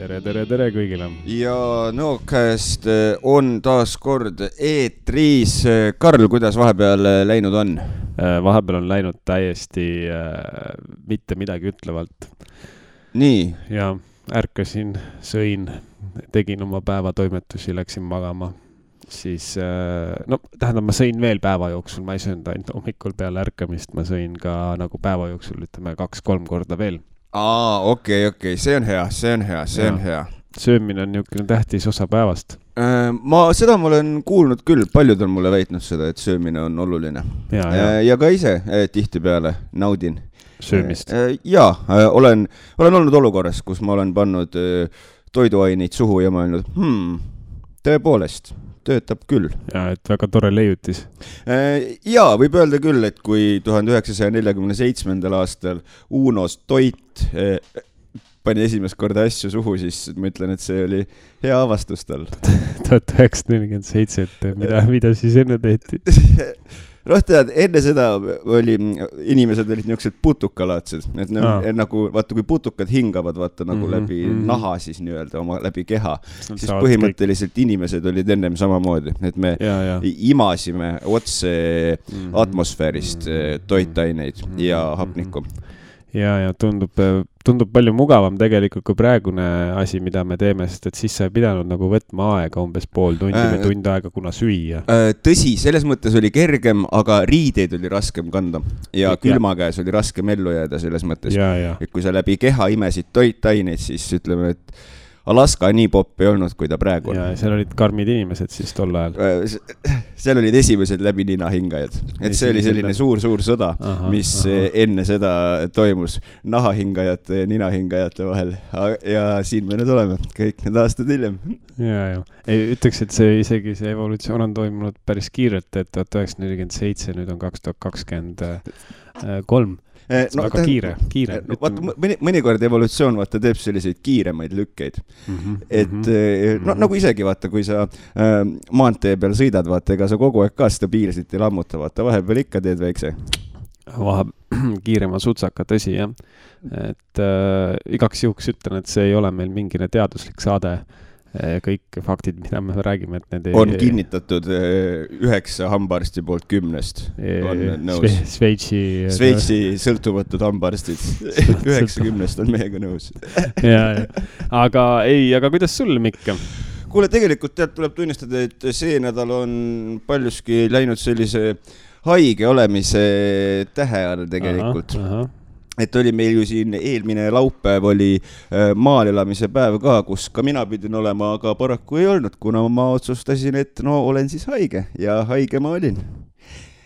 tere kõigile. Ja Nõokäest on taas kord eetris. Karl, kuidas vahepeal läinud on? Vahepeal on läinud täiesti mitte midagi ütlevalt. Nii. Ja ärkasin, sõin, tegin oma päevatoimetusi, läksin magama. Siis, tähendab, ma sõin veel päeva jooksul, ma ei söönud ainult hommikul peale ärkamist, ma sõin ka nagu päeva jooksul, ütleme 2-3 korda veel. Okei, see on hea. Söömine on niisugune tähtis osa päevast. Seda ma olen kuulnud küll, paljud on mulle väitnud seda, et söömine on oluline. Ja ka ise tihti peale naudin söömist. Olen olnud olukorras, kus ma olen pannud toiduaineid suhu ja ma olen öelnud, tõepoolest, töötab küll. Ja, et väga tore leiutis. Võib öelda küll, et kui 1947. aastal Unos Toit pani esimest korda asju suhu, siis ma ütlen, et see oli hea avastus tal. 1947, mida siis enne tehti? Enne seda inimesed olid niisugused putukalaatsed, et nagu, vaata, kui putukad hingavad, vaata, nagu läbi naha siis nii-öelda, oma läbi keha, siis põhimõtteliselt inimesed olid ennem samamoodi, et me imasime otse atmosfäärist toitaineid ja hapnikku. Ja tundub palju mugavam tegelikult kui praegune asi, mida me teeme, sest et siis sa ei pidanud nagu võtma aega umbes pool tundi või tund aega, kuna süüa. Tõsi, selles mõttes oli kergem, aga riideid oli raskem kanda ja külma käes oli raskem ellu jääda selles mõttes. Et kui sa läbi keha imesid toitaineid, siis ütleme, et Alaska nii popp ei olnud, kui ta praegu on. Ja seal olid karmid inimesed siis tol ajal. Seal olid esimesed läbi ninahingajad. Et see oli selline suur sõda, mis enne seda toimus nahahingajate ja ninahingajate vahel. Ja siin me nüüd oleme, kõik need aastad hiljem. Ütleks, et isegi see evolutsioon on toimunud päris kiirelt, et 1947, nüüd on 2023. Väga kiire. Mõnikord evolutsioon teeb selliseid kiiremaid lükkeid. Nagu isegi kui sa maantee peal sõidad, ega sa kogu aeg ka stabiilselt ei lammuta, vahepeal ikka teed väikse. Kiirema sutsaka, tõsi, jah. Et igaks juhuks ütlen, et see ei ole meil mingine teaduslik saade. Kõik faktid, mida me räägime, et need on kinnitatud 9 hambaarsti poolt 10 on nõus. Sveitsi sõltumatud hambaarstid 90 on meiega nõus. Aga kuidas sul, Mikk? Kuule, tegelikult tuleb tunnistada, et see nädal on paljuski läinud sellise haige olemise tähe all tegelikult. Et oli meil ju siin eelmine laupäev oli maal elamise päev ka, kus ka mina pidin olema, aga paraku ei olnud, kuna ma otsustasin, et olen siis haige ja haige ma olin.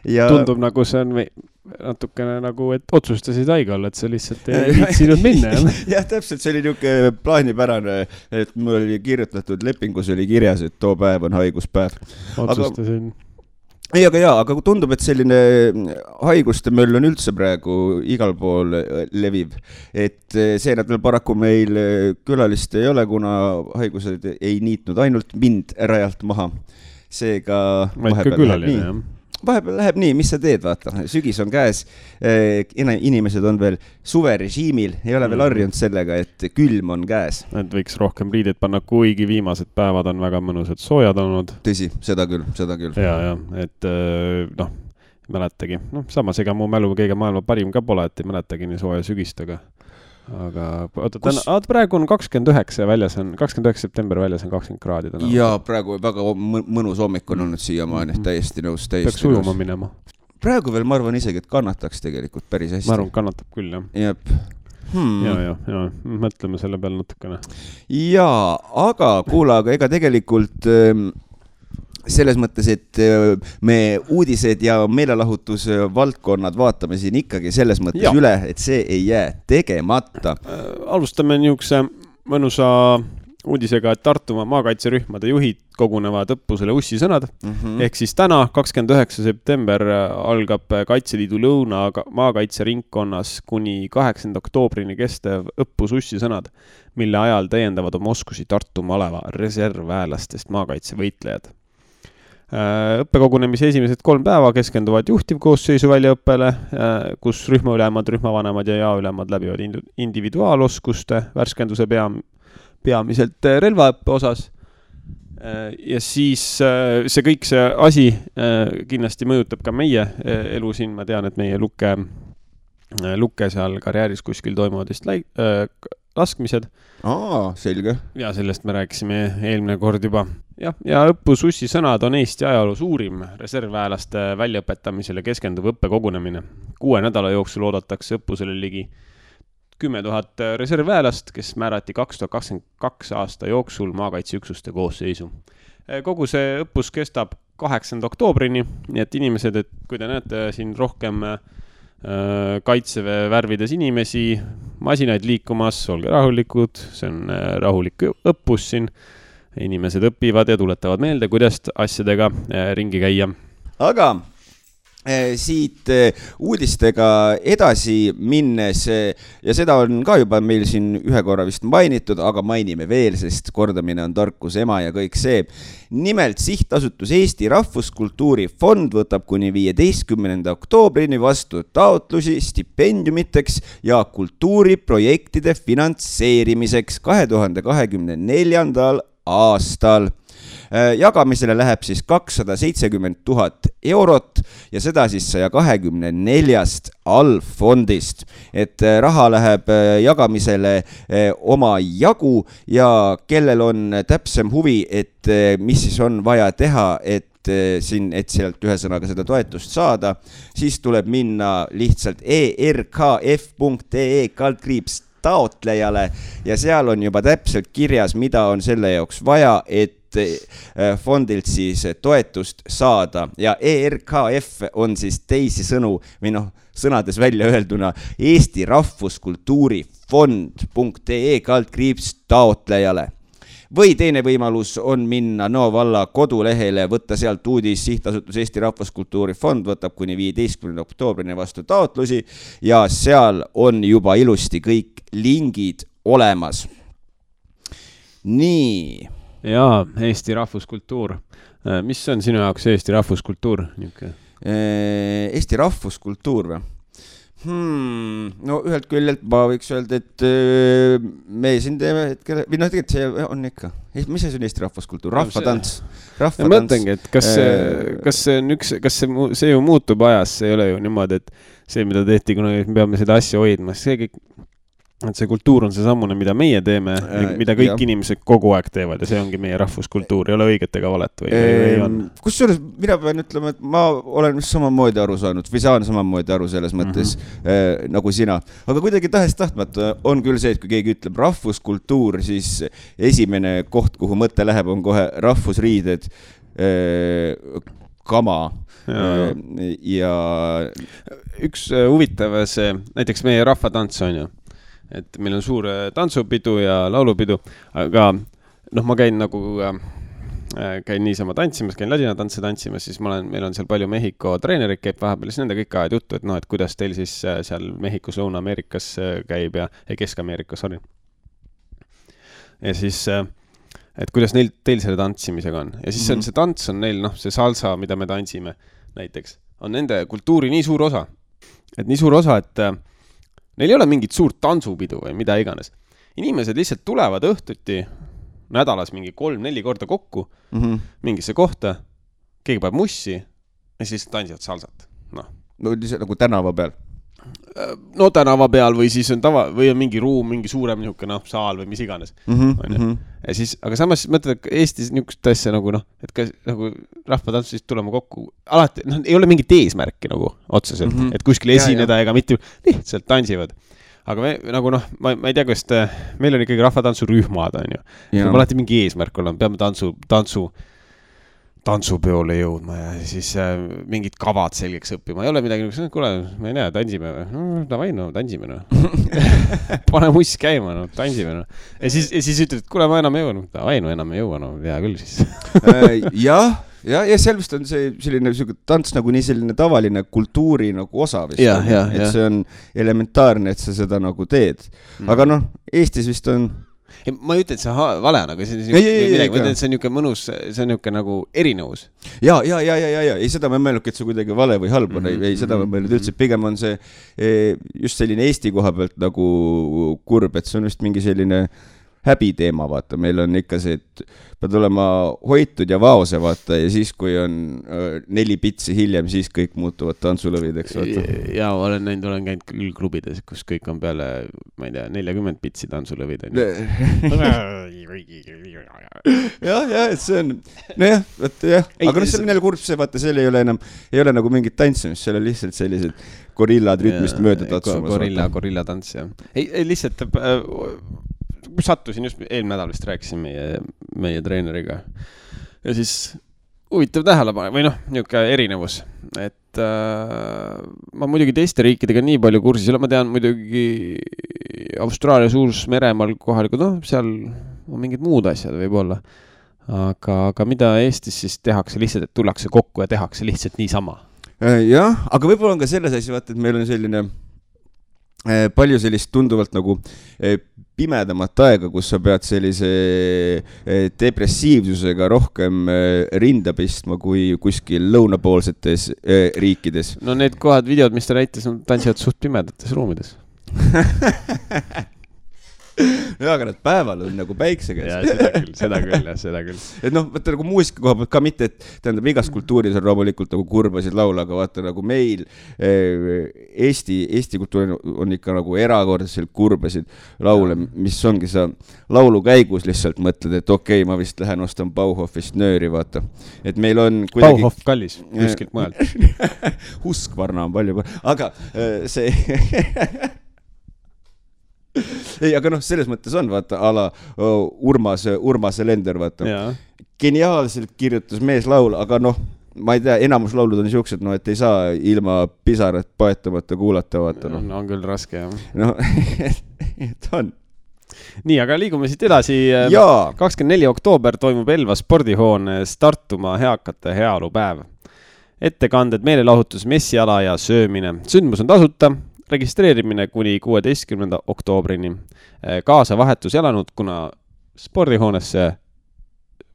Tundub nagu see on natukene nagu, et otsustasid haige olla, et sa lihtsalt ei viitsinud minna. Jah, täpselt, see oli niisugune plaanipärane, et mul oli kirjutatud lepingus oli kirjas, et too päev on haiguspäev. Otsustasin. Aga tundub, et selline haiguste möll on üldse praegu igal pool leviv. Et see nädal paraku meil külalist ei ole, kuna haigused ei niitnud ainult mind rajalt maha. Seega vahepeal läheb nii, mis sa teed, vaata. Sügis on käes, inimesed on veel suverežiimil, ei ole veel harjunud sellega, et külm on käes. Et võiks rohkem riideid panna, kuigi viimased päevad on väga mõnusad soojad olnud. Tõsi, seda küll. Et mäletagi. Samas ega mu mälu kõige maailma parim ka pole, et ei mäletagi nii sooja sügist, aga praegu on 29 väljas on, 29 september väljas on 20 kraadi. Ja praegu väga mõnus hommik on olnud siiamaani, täiesti nõus. Peaks ujuma minema. Praegu veel ma arvan isegi, et kannataks tegelikult päris hästi. Ma arvan, kannatab küll, jah. Ja, mõtleme selle peale natukene. Aga kuula, ega tegelikult selles mõttes, et me uudised ja meelelahutuse valdkonnad vaatame siin ikkagi selles mõttes üle, et see ei jää tegemata. Alustame niisuguse mõnusa uudisega, et Tartumaa maakaitserühmade juhid kogunevad õppusele Ussisõnad. Ehk siis täna, 29. september, algab Kaitseliidu Lõuna maakaitseringkonnas kuni 8. oktoobrini kestev õppus Ussisõnad, mille ajal täiendavad oma oskusi Tartu maleva reservväelastest maakaitsevõitlejad. Õppekogunemise esimesed 3 päeva keskenduvad juhtivkoosseisu väljaõppele, kus rühmaülemad, rühmavanemad ja jaoülemad läbivad individuaaloskuste värskenduse peamiselt relvaõppe osas. Ja siis see kõik see asi kindlasti mõjutab ka meie elu siin. Ma tean, et meie lukke seal karjääris kuskil toimuvad vist laskmised. Selge. Ja sellest me rääkisime eelmine kord juba. Ja õppus Ussi sõnad on Eesti ajaloo suurim reservväelaste väljaõpetamisele keskenduv õppekogunemine. 6 nädala jooksul oodatakse õppusele ligi 10 000 reservväelast, kes määrati 2022 aasta jooksul maakaitseüksuste koosseisu. Kogu see õppus kestab 8. oktoobrini, nii et inimesed, et kui te näete siin rohkem kaitseväe värvides inimesi, masinaid liikumas, olge rahulikud, see on rahulik õppus siin. Inimesed õpivad ja tuletavad meelde, kuidas asjadega ringi käia. Aga siit uudistega edasi minnes ja seda on ka juba meil siin ühe korra vist mainitud, aga mainime veel, sest kordamine on tarkuse ema ja kõik see. Nimelt sihtasutus Eesti Rahvuskultuuri Fond võtab kuni 15. oktoobrini vastu taotlusi stipendiumiteks ja kultuuriprojektide finantseerimiseks 2024. aastal. Jagamisele läheb siis 270 000 eurot ja seda siis 124 allfondist. Et raha läheb jagamisele oma jagu ja kellel on täpsem huvi, et mis siis on vaja teha, et sealt ühesõnaga seda toetust saada, siis tuleb minna lihtsalt erkf.ee/ taotlejale ja seal on juba täpselt kirjas, mida on selle jaoks vaja, et fondilt siis toetust saada ja ERKF on siis teisi sõnu või sõnades välja öelduna Eesti Rahvuskultuuri Fond.ee/ taotlejale. Või teine võimalus on minna Nõo valla kodulehele, võtta sealt uudis sihtasutus Eesti Rahvuskultuuri Fond võtab kuni 15. oktoobrini vastu taotlusi ja seal on juba ilusti kõik lingid olemas. Nii. Jaa, Eesti rahvuskultuur. Mis on sinu jaoks Eesti rahvuskultuur? Eesti rahvuskultuur või? No ühelt küljelt ma võiks öelda, et me siin teeme hetkel, või tegelikult see on ikka. Mis see on Eesti rahvuskultuur? Rahvatants. Ma mõtlengi, et kas see ju muutub ajas, see ei ole ju niimoodi, et see, mida tehti, kuna me peame seda asja hoidma, see kõik, et see kultuur on see sammune, mida meie teeme, mida kõik inimesed kogu aeg teevad ja see ongi meie rahvuskultuur, ei ole õiget ega valet või on? Kusjuures mina pean ütlema, et ma olen samamoodi aru saanud või saan samamoodi aru selles mõttes nagu sina. Aga kuidagi tahes-tahtmata on küll see, et kui keegi ütleb rahvuskultuur, siis esimene koht, kuhu mõte läheb, on kohe rahvusriided, kama ja üks huvitav see, näiteks meie rahvatants on ju, et meil on suur tantsupidu ja laulupidu, aga ma käin niisama tantsimas, käin ladinatantse tantsimas, siis meil on seal palju Mehhiko treenerid käib vahepeal, siis nende kõik ajad juttu, et kuidas teil siis seal Mehhikos, Lõuna-Ameerikas käib ja Kesk-Ameerikas, sorry. Ja siis, et kuidas teil selle tantsimisega on. Ja siis see tants on neil, see salsa, mida me tantsime näiteks, on nende kultuuri nii suur osa. Et nii suur osa, et neil ei ole mingit suurt tantsupidu või mida iganes. Inimesed lihtsalt tulevad õhtuti nädalas mingi 3-4 korda kokku mingisse kohta, keegi paneb mussi ja siis tantsivad salsat. No nagu tänava peal? No tänava peal või siis on või on mingi ruum, mingi suurem niisugune saal või mis iganes. Ja siis, aga samas mõtled, et Eestis niisugust asja et kas rahvatantsu siis tulema kokku alati, ei ole mingit eesmärki otseselt, et kuskil esineda ega mitte lihtsalt tantsivad. Aga me ma ei tea, kas meil on ikkagi rahvatantsurühmad on ju. Meil alati mingi eesmärk olla, peame tantsupeole jõudma ja siis mingid kavad selgeks õppima. Ei ole midagi, kuule, ma ei näe, tantsime või? Tantsime. Pane muss käima, tantsime. Ja siis ütled, et kuule, ma enam ei jõua. Enam ei jõua, hea küll siis. Ja seal vist on see selline tants nagu nii selline tavaline kultuuri osa vist. Et see on elementaarne, et sa seda teed. Aga Eestis vist on... Ma ei ütle, et see vale on, aga see on niuke mõnus, see on niuke nagu erinevus. Ja. Ei seda ma mõelnud, et see kuidagi vale või halb on. Ei seda ma mõelnud üldse. Pigem on see just selline Eesti koha pealt nagu kurb, et see on vist mingi selline häbiteema, vaata, meil on ikka see, et pead olema hoitud ja vaose, vaata, ja siis, kui on 4 pitsi hiljem, siis kõik muutuvad tantsulõvideks, vaata. Ja olen käinud küll klubides, kus kõik on peale, ma ei tea, 40 pitsi tantsulõvid. jah, et see on, nojah, aga see on jälle kurb see, vaata, seal ei ole nagu mingit tantsimist, seal on lihtsalt sellised gorillad rütmist mööda tatsumas. Gorilla tants, jah. Ei, lihtsalt sattusin just eelmine nädal vist rääkisin meie treeneriga ja siis huvitav tähelepanu või niisugune erinevus, et ma muidugi teiste riikidega nii palju kursis, ma tean muidugi Austraalia Suurs-Meremaal kohalikud, seal on mingid muud asjad võib-olla, aga mida Eestis siis tehakse lihtsalt, et tullakse kokku ja tehakse lihtsalt niisama? Jah, aga võib-olla on ka selles asja, vaata, et meil on selline palju sellist tunduvalt nagu pimedamat aega, kus sa pead sellise depressiivsusega rohkem rinda pistma kui kuskil lõunapoolsetes riikides. No need kohad, videod, mis ta näitas, tantsivad suht pimedates ruumides. Ja, aga nad päeval on nagu päikse käes. Ja, seda küll. Et vaata nagu muusika koha pealt ka mitte, et tähendab igas kultuuris on loomulikult nagu kurbasid laula, aga vaata nagu meil Eesti kultuur on ikka nagu erakordselt kurbasid laule, mis ongi sa laulu käigus lihtsalt mõtled, et okei, ma vist lähen ostan Bauhofist nööri, vaata. Et meil on kuidagi... Bauhof kallis, kuskilt mujalt. Huskvarna on palju, aga see... Ei, aga selles mõttes on, vaata, ala Urmas Lender, vaata. Geniaalselt kirjutas mees laul, aga ma ei tea, enamus laulud on niisugused, et ei saa ilma pisarat paetamata kuulata, vaata. On küll raske, jah. Et on. Nii, aga liigume siit edasi. 24. oktoober toimub Elva spordihoones Tartumaa heakate heaolupäev. Ettekanded, meelelahutus, messiala ja söömine. Sündmus on tasuta. Registreerimine kuni 16. oktoobrini. Kaasa vahetus elanud, kuna spordihoonesse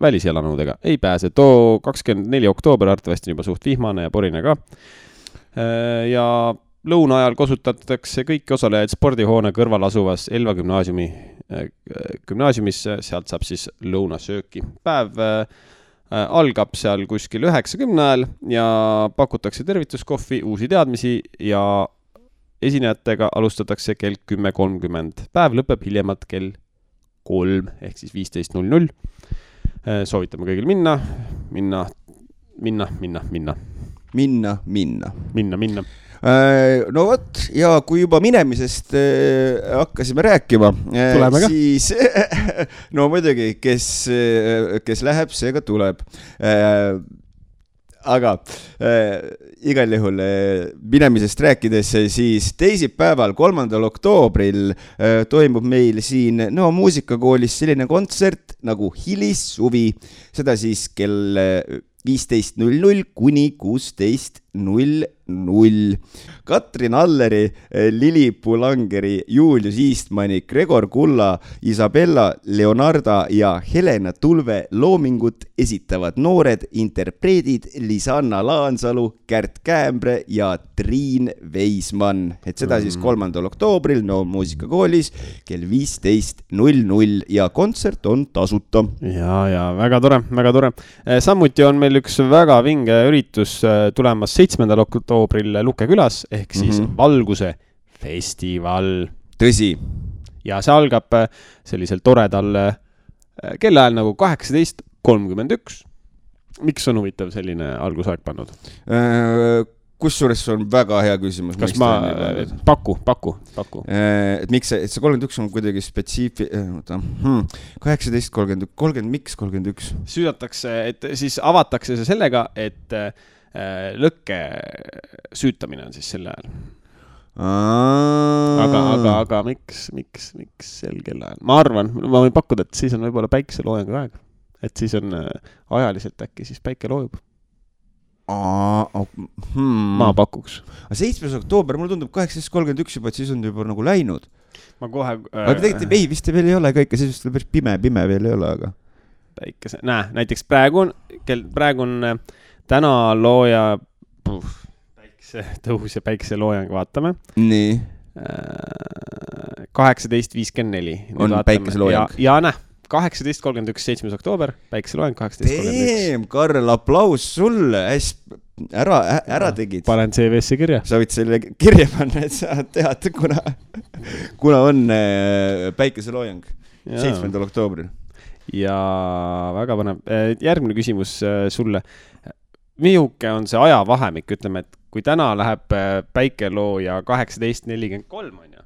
väliselanudega ei pääse. Too 24. oktoober arvatavasti juba suht vihmane ja porine ka. Ja lõuna ajal kasutatakse kõiki osalejaid spordihoone kõrval asuvas Elva gümnaasiumis. Sealt saab siis lõunasööki. Päev algab seal kuskil 9:10 ajal ja pakutakse tervituskohvi, uusi teadmisi ja esinejatega alustatakse kell 10:30. Päev lõpeb hiljemalt kell 3 ehk siis 15:00. Soovitame kõigil minna. No vot, ja kui juba minemisest hakkasime rääkima, siis no muidugi, kes läheb, see ka tuleb. Aga igal juhul minemisest rääkides, siis teisipäeval 3. oktoobril toimub meil siin muusikakoolis selline kontsert nagu Hilissuvi. Seda siis kell 15:00 kuni 16:00. Katrin Alleri, Lili Pulangeri, Julius Eastmani, Gregor Kulla, Isabella Leonarda ja Helena Tulve loomingut esitavad noored interpreedid Lisanna Laansalu, Kärt Käämbre ja Triin Veismann. Et seda siis 3. oktoobril muusikakoolis kell 15:00 ja kontsert on tasuta. Ja väga tore. Samuti on meil üks väga vinge üritus tulemas 7. oktoobril Luke külas, ehk siis Valguse festival. Tõsi. Ja see algab sellisel toredal kellaajal nagu 18:31. Miks on huvitav selline algusaeg pannud? Kusjuures on väga hea küsimus. Kas ma paku? Et miks see 31 on kuidagi 18:30, miks 31? Süüdatakse, et siis avatakse see sellega, et lõkke süütamine on siis selle ajal. Aga miks sel kellaajal? Ma arvan, ma võin pakkuda, et siis on võib-olla päikeseloojangu aeg. Et siis on ajaliselt äkki siis päike loojub. Ma pakuks. 7. oktoober, mulle tundub 18:31 juba, et siis on juba nagu läinud. Ma kohe... Aga tegelikult ei, vist veel ei ole ka ikka, siis päris pime veel ei ole, aga... Päikese... näiteks praegu on täna looja päikese tõus ja päikese loojang vaatame. Nii. 18.54. On päikeseloojang. Ja näh, 18.31, 7. oktoober, päikeseloojang 18.31. Karl, aplaus sulle, ära tegid. Panen CV-sse kirja. Sa võid selle kirja panna, et sa tead, kuna on päikeseloojang 7. oktoobril. Ja väga põnev. Järgmine küsimus sulle. Mihuke on see ajavahemik, ütleme, et kui täna läheb päikelooja 18.43 on ju,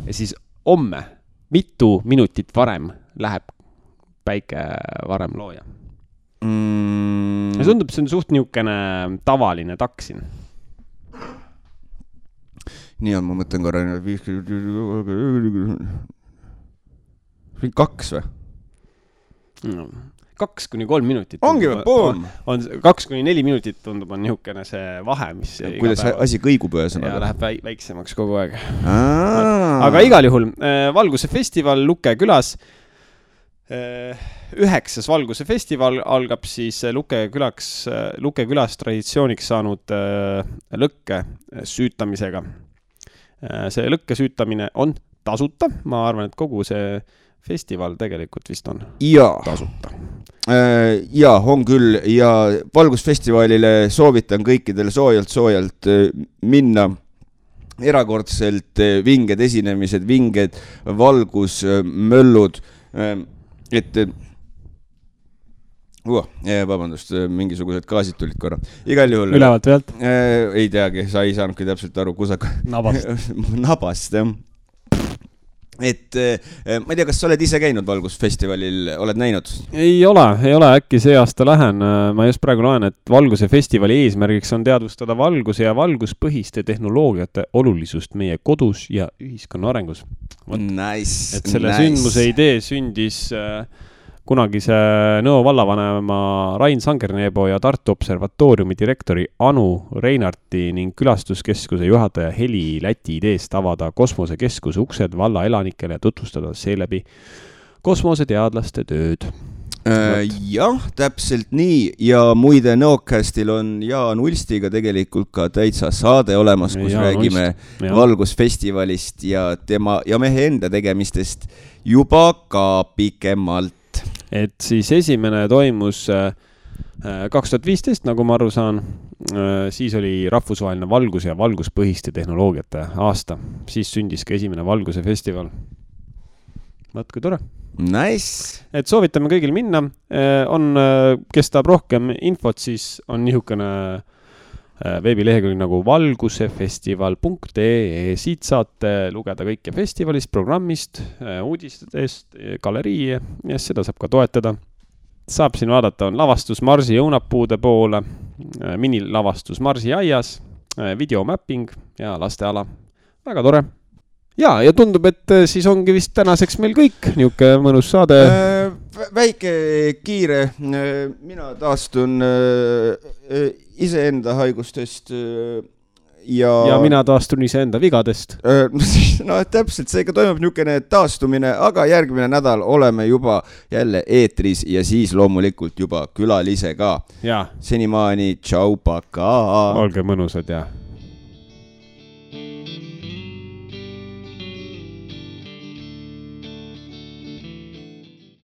ja siis homme, mitu minutit varem läheb päike varem looja? Ja tundub, see on suht niukene tavaline taksin. Nii on, ma mõtlen korra 2 või? 2-3 minutit. Ongi või, boom! 2-4 minutit tundub on niukene see vahe, mis kuidas asi kõigub ühesõnaga. Ja läheb väiksemaks kogu aeg. Aga igal juhul Valguse festival Luke külas. 9. Valguse festival algab siis Luke külas traditsiooniks saanud lõkke süütamisega. See lõkke süütamine on tasuta. Ma arvan, et kogu see festival tegelikult vist on tasuta. Ja, on küll. Ja Valgusfestivalile soovitan kõikidele soojalt minna. Erakordselt vinged esinemised, vinged valgusmöllud. Vabandust, mingisugused gaasid tulid korra. Igal juhul. Ülevalt pealt? Ei teagi, sa ei saanudki täpselt aru, kusaka. Nabast, jah. Et ma ei tea, kas sa oled ise käinud Valgusfestivalil, oled näinud? Ei ole, äkki see aasta lähen. Ma just praegu loen, et Valguse festivali eesmärgiks on teadvustada valguse ja valguspõhiste tehnoloogiate olulisust meie kodus ja ühiskonna arengus. Nice. Et selle sündmuse idee sündis kunagise Nõo vallavanema Rain Sangerneebo ja Tartu Observatooriumi direktori Anu Reinarti ning külastuskeskuse juhataja Heli Läti ideest avada kosmosekeskuse uksed valla elanikele ja tutvustada seeläbi kosmoseteadlaste tööd. Jah, täpselt nii. Ja muide Nõokastil on Jaan Ulstiga tegelikult ka täitsa saade olemas, kus räägime Valgusfestivalist ja mehe enda tegemistest juba ka pikemalt. Et siis esimene toimus 2015, nagu ma aru saan, siis oli rahvusvaheline valgus ja valguspõhiste tehnoloogiate aasta. Siis sündis ka esimene Valguse festival. Võtku tore. Nice. Et soovitame kõigil minna. Kes tahab rohkem infot, siis on nihukene veebilehekülg nagu valgusefestival.ee. Siit saate lugeda kõike festivalist, programmist, uudistest, galerii ja seda saab ka toetada. Saab siin vaadata, on lavastus Marsi õunapuude poole, minilavastus Marsi aias, videomapping ja lasteala. Väga tore. Ja tundub, et siis ongi vist tänaseks meil kõik niuke mõnus saade. Väike kiire, mina taastun iseenda haigustest ja mina taastun iseenda vigadest. No täpselt, seega toimub niukene taastumine, aga järgmine nädal oleme juba jälle eetris ja siis loomulikult juba külalise ka. Senimaani, tšau, paka! Olge mõnusad ja